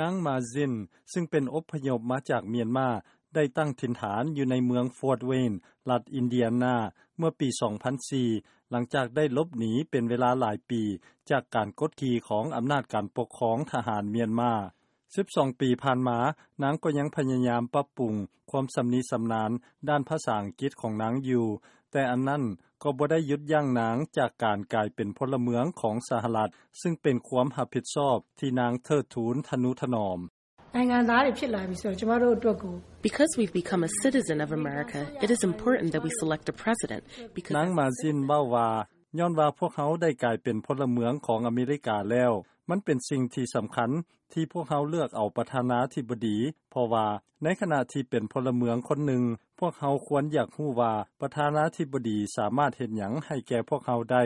ນາງ ມາຊິນ ຊຶ່ງເປັນອົບພະຍົບມາຈາກມຽນມາ ໄດ້ຕັ້ງຖິ່ນຖານຢູ່ໃນເມືອງ Fort Wayne ລັດອິນເດຍນາ ເມື່ອປີ ສອງພັນສີ່ ຫຼັງຈາກໄດ້ຫຼົບໜີເປັນເວລາຫຼາຍປີ ຈາກການກົດຂີ່ຂອງອຳນາດການປົກຄອງທະຫານມຽນມາ. ສິບສອງປີຜ່ານມາ, ນາງກໍຍັງພະຍາຍາມປັບປຸງຄວາມຊຳນິຊຳນານດ້ານພາສາອັງກິດຂອງນາງຢູ່, ແຕ່ອັນນັ້ນກໍບໍ່ໄດ້ຢຸດຢັ້ງນາງຈາກການກາຍເປັນພົນລະເມືອງຂອງສະຫະລັດ, ຊຶ່ງເປັນຄວາມຮັບຜິດຊອບທີ່ນາງເທີດທູນທະນຸຖະໜອມ. နိုင်ငံသားတွေဖြစ်လာပြီဆိုတော့ကျမတို့အတွက်ကို Because we've become a citizen of America, it is important that we select a president because ນາງ ມາຊິນ ເວົ້າວ່າ ຍ້ອນວ່າພວກເຮົາໄດ້ກາຍເປັນພົນລະເມືອງຂອງອາເມລິກາແລ້ວ, ມັນເປັນສິ່ງທີ່ສຳຄັນທີ່ພວກເຮົາເລືອກເອົາປະທານາທິບໍດີ, ເພາະວ່າໃນຂະນະທີ່ເປັນພົນລະເມືອງຄົນໜຶ່ງ, ພວກເຮົາຄວນຢາກຮູ້ວ່າປະທານາທິບໍດີສາມາດເຮັດຫຍັງໃຫ້ແກ່ພວກເຮົາໄດ້.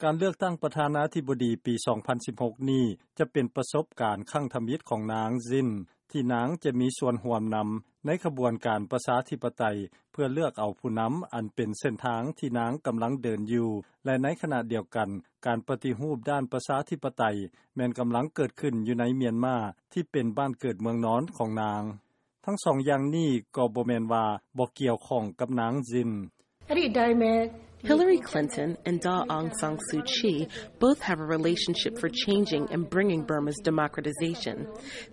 ການເລືອກຕັ້ງປະທານາທິບໍດີປີ ສອງພັນສິບຫົກນີ້ ຈະເປັນປະສົບການຄັ້ງທຳອິດຂອງນາງ ຊິນ ທີ່ນາງຈະມີສ່ວນຮ່ວມນຳໃນຂະບວນການປະຊາທິປະໄຕ ເພື່ອເລືອກເອົາຜູ້ນຳ ອັນເປັນເສັ້ນທາງທີ່ນາງກຳລັງເດີນຢູ່ ແລະ ໃນຂະນະດຽວກັນ, ການປະຕິຮູບດ້ານປະຊາທິປະໄຕ ແມ່ນກຳລັງເກີດຂຶ້ນຢູ່ໃນມຽນມາ ທີ່ເປັນບ້ານເກີດເມືອງນອນຂອງນາງ. ທັງສອງຢ່າງນີ້ກໍບໍ່ແມ່ນວ່າບໍ່ກ່ຽວຂ້ອງກັບນາງ ຊິນ. အဲ့ဒီအတိုင်းပဲ Hillary Clinton and Daw Aung San Suu Kyi both have a relationship for changing and bringing Burma's democratization.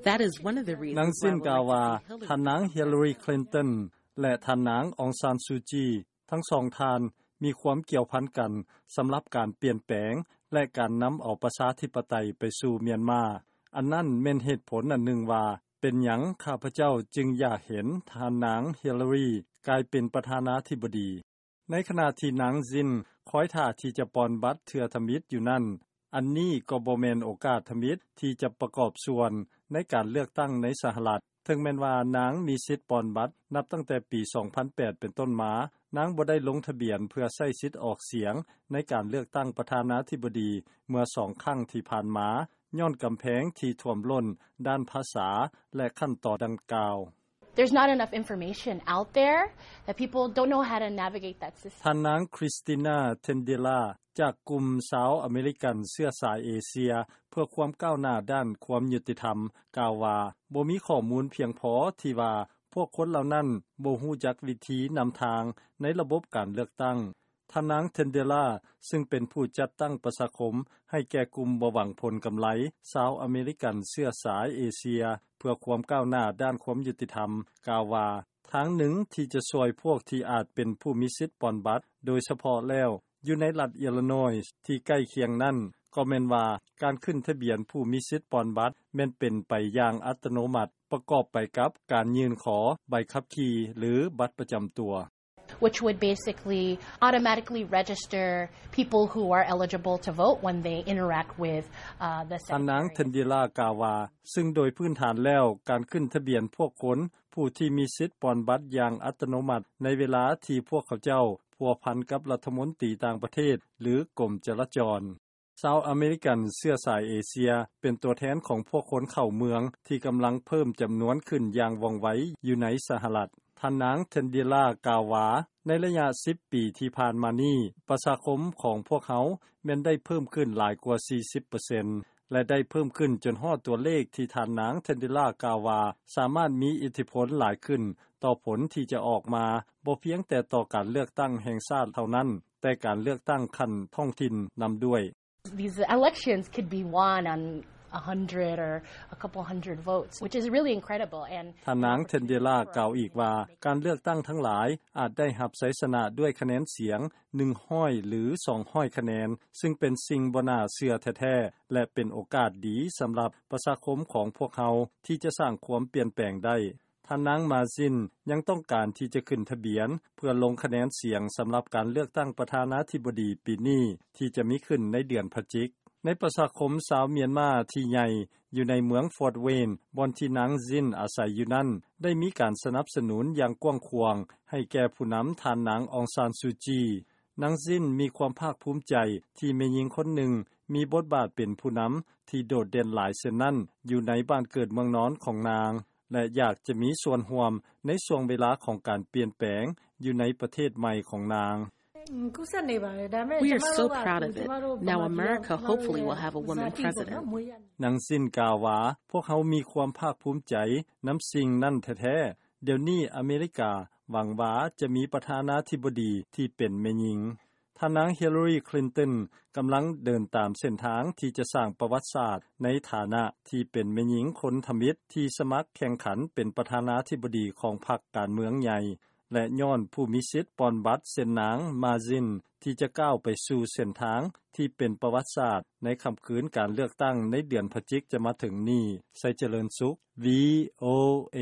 That is one of the reasons ນາງຊິນກ່າວວ່າ ທ່ານນາງ Hillary Clinton ແລະ ທ່ານນາງ ອອງຊານ ຊູ ຈີ ທັງສອງທ່ານມີຄວາມກ່ຽວພັນກັນ ສຳລັບການປ່ຽນແປງ ແລະ ການນຳເອົາປະຊາທິປະໄຕໄປສູ່ມຽນມາ. ອັນນັ້ນແມ່ນເຫດຜົນອັນໜຶ່ງວ່າ ເປັນຫຍັງຂ້າພະເຈົ້າຈຶ່ງຢາກເຫັນທ່ານນາງ Hillary ກາຍເປັນປະທານາທິບໍດີ. ໃນຂະນະທີ່ນາງ ຊິນ ຄອຍຖ້າທີ່ຈະປ່ອນບັດເທື່ອທຳອິດຢູ່ນັ້ນ, ອັນນີ້ກໍບໍ່ແມ່ນໂອກາດທຳອິດທີ່ຈະປະກອບສ່ວນໃນການເລືອກຕັ້ງໃນສະຫະລັດ. ເຖິງແມ່ນວ່ານາງມີສິດປ່ອນບັດນັບຕັ້ງແຕ່ປີ ສອງພັນແປດ ເປັນຕົ້ນມາ, ນາງບໍ່ໄດ້ລົງທະບຽນເພື່ອໃຊ້ສິດອອກສຽງໃນການເລືອກຕັ້ງປະທານາທິບໍດີເມື່ອສອງຄັ້ງທີ່ຜ່ານມາ ຍ້ອນກຳແພງທີ່ຖ້ວມລົ້ນດ້ານພາສາ ແລະ ຂັ້ນຕອນດັ່ງກ່າວ. There's not enough information out there that people don't know how to navigate that system. ທ່ານນາງ Christina Tendila ຈາກກຸ່ມຊາວອາເມລິກັນເຊື້ອສາຍເອເຊຍ ເພື່ອຄວາມກ້າວໜ້າດ້ານຄວາມຍຸຕິທຳ ກ່າວວ່າ ບໍ່ມີຂໍ້ມູນພຽງພໍທີ່ວ່າພວກຄົນເຫຼົ່ານັ້ນບໍ່ຮູ້ຈັກວິທີນຳທາງໃນລະບົບການເລືອກຕັ້ງ. ທ່ານນາງ Tendila ຊຶ່ງເປັນຜູ້ຈັດຕັ້ງປະຊາຄົມໃຫ້ແກ່ກຸ່ມບໍ່ຫວັງຜົນກຳໄລ ຊາວອາເມລິກັນເຊື້ອສາຍເອເຊຍ ເພື່ອຄວາມກ້າວໜ້າດ້ານຄວາມຍຸຕິທຳ ກ່າວວ່າ ທາງໜຶ່ງທີ່ຈະຊ່ວຍພວກທີ່ອາດເປັນຜູ້ມີສິດປ່ອນບັດ ໂດຍສະເພາະແລ້ວ ຢູ່ໃນລັດ Illinois ທີ່ໃກ້ຄຽງນັ້ນ ກໍແມ່ນວ່າການຂຶ້ນທະບຽນຜູ້ມີສິດປ່ອນບັດ ແມ່ນເປັນໄປຢ່າງອັດຕະໂນມັດ ປະກອບໄປກັບການຍື່ນຂໍໃບຂັບຂີ່ ຫຼື ບັດປະຈຳຕົວ. which would basically automatically register people who are eligible to vote when they interact with the Secretary. ທ່ານນາງ Tendila ກ່າວວ່າ ຊຶ່ງໂດຍພື້ນຖານແລ້ວ ການຂຶ້ນທະບຽນພວກຄົນຜູ້ທີ່ມີສິດປ່ອນບັດຢ່າງອັດຕະໂນມັດ ໃນເວລາທີ່ພວກເຂົາເຈົ້າພົວພັນກັບລັດຖະມົນຕີຕ່າງປະເທດ ຫຼື ກົມຈະລາຈອນ. ຊາວອາເມລິກັນເຊື້ອສາຍເອເຊຍ ເປັນຕົວແທນຂອງພວກຄົນເຂົ້າເມືອງ ທີ່ກຳລັງເພີ່ມຈຳນວນຂຶ້ນຢ່າງວ່ອງໄວຢູ່ໃນສະຫະລັດ. ທ່ານນາງ Tendila ກ່າວວ່າ ໃນໄລຍະສິບປີທີ່ຜ່ານມານີ້ ປະຊາຄົມຂອງພວກເຮົາແມ່ນໄດ້ເພີ່ມຂຶ້ນຫຼາຍກວ່າສີ່ສິບເປີເຊັນ ແລະ ໄດ້ເພີ່ມຂຶ້ນຈົນຮອດຕົວເລກທີ່ທ່ານນາງ Tendila ກ່າວວ່າ ສາມາດມີອິດທິພົນຫຼາຍຂຶ້ນຕໍ່ຜົນທີ່ຈະອອກມາ ບໍ່ພຽງແຕ່ຕໍ່ການເລືອກຕັ້ງແຫ່ງຊາດເທົ່ານັ້ນ ແຕ່ການເລືອກຕັ້ງຂັ້ນທ້ອງຖິ່ນນຳດ້ວຍ. These elections could be won on a hundred or a couple hundred votes, which is really incredible. And ທ່ານນາງ Tendila ກ່າວອີກວ່າ ການເລືອກຕັ້ງທັງຫຼາຍອາດໄດ້ຮັບໄຊຊະນະດ້ວຍຄະແນນສຽງໜຶ່ງຮ້ອຍ ຫຼື ສອງຮ້ອຍຄະແນນ ຊຶ່ງເປັນສິ່ງບໍ່ໜ້າເຊື່ອແທ້ໆ ແລະ ເປັນໂອກາດດີສຳລັບປະຊາຄົມຂອງພວກເຮົາທີ່ຈະສ້າງຄວາມປ່ຽນແປງໄດ້. ທ່ານນາງ ມາຊິນ ຍັງຕ້ອງການທີ່ຈະຂຶ້ນທະບຽນເພື່ອລົງຄະແນນສຽງສຳລັບການເລືອກຕັ້ງປະທານາທິບໍດີປີນີ້ ທີ່ຈະມີຂຶ້ນໃນເດືອນພະຈິກ. ໃນປະຊາຄົມຊາວມຽນມາທີ່ໃຫຍ່ຢູ່ໃນເມືອງ Fort Wayne ບ່ອນທີ່ນາງ ຊິນ ອາໄສຢູ່ນັ້ນ ໄດ້ມີການສະໜັບສະໜູນຢ່າງກວ້າງຂວາງໃຫ້ແກ່ຜູ້ນຳທ່ານນາງ ອອງຊານ ຊູ ຈີ. ນາງ ຊິນ ມີຄວາມພາກພູມໃຈທີ່ແມ່ຍິງຄົນໜຶ່ງມີບົດບາດເປັນຜູ້ນຳທີ່ໂດດເດັ່ນຫຼາຍເຊັ່ນນັ້ນ ຢູ່ໃນບ້ານເກີດເມືອງນອນຂອງນາງ ແລະ ຢາກຈະມີສ່ວນຮ່ວມໃນຊ່ວງເວລາຂອງການປ່ຽນແປງຢູ່ໃນປະເທດໃໝ່ຂອງນາງ. We are so proud of it. Now America hopefully will have a woman president. ນາງຊິນກ່າວວ່າ ພວກເຮົາມີຄວາມພາກພູມໃຈນຳສິ່ງນັ້ນແທ້ໆ. ດຽວນີ້ອາເມລິກາຫວັງວ່າຈະມີປະທານາທິບໍດີທີ່ເປັນແມ່ຍິງ. ທ່ານນາງ Hillary Clinton ກຳລັງເດີນຕາມເສັ້ນທາງທີ່ຈະສ້າງປະຫວັດສາດໃນຖານະທີ່ເປັນແມ່ຍິງຄົນທຳອິດທີ່ສະໝັກແຂ່ງຂັນເປັນປະທານາທິບໍດີຂອງພັກການເມືອງໃຫຍ່ ແລະ ຍ້ອນຜູ້ມີສິດປ່ອນບັດເຊັ່ນນາງ Mazin ທີ່ຈະກ້າວໄປສູ່ເສັ້ນທາງທີ່ເປັນປະຫວັດສາດໃນຄ່ຳຄືນການເລືອກຕັ້ງໃນເດືອນພະຈິກຈະມາເຖິງນີ້. ໄຊຈະເລີນສຸກ VOA.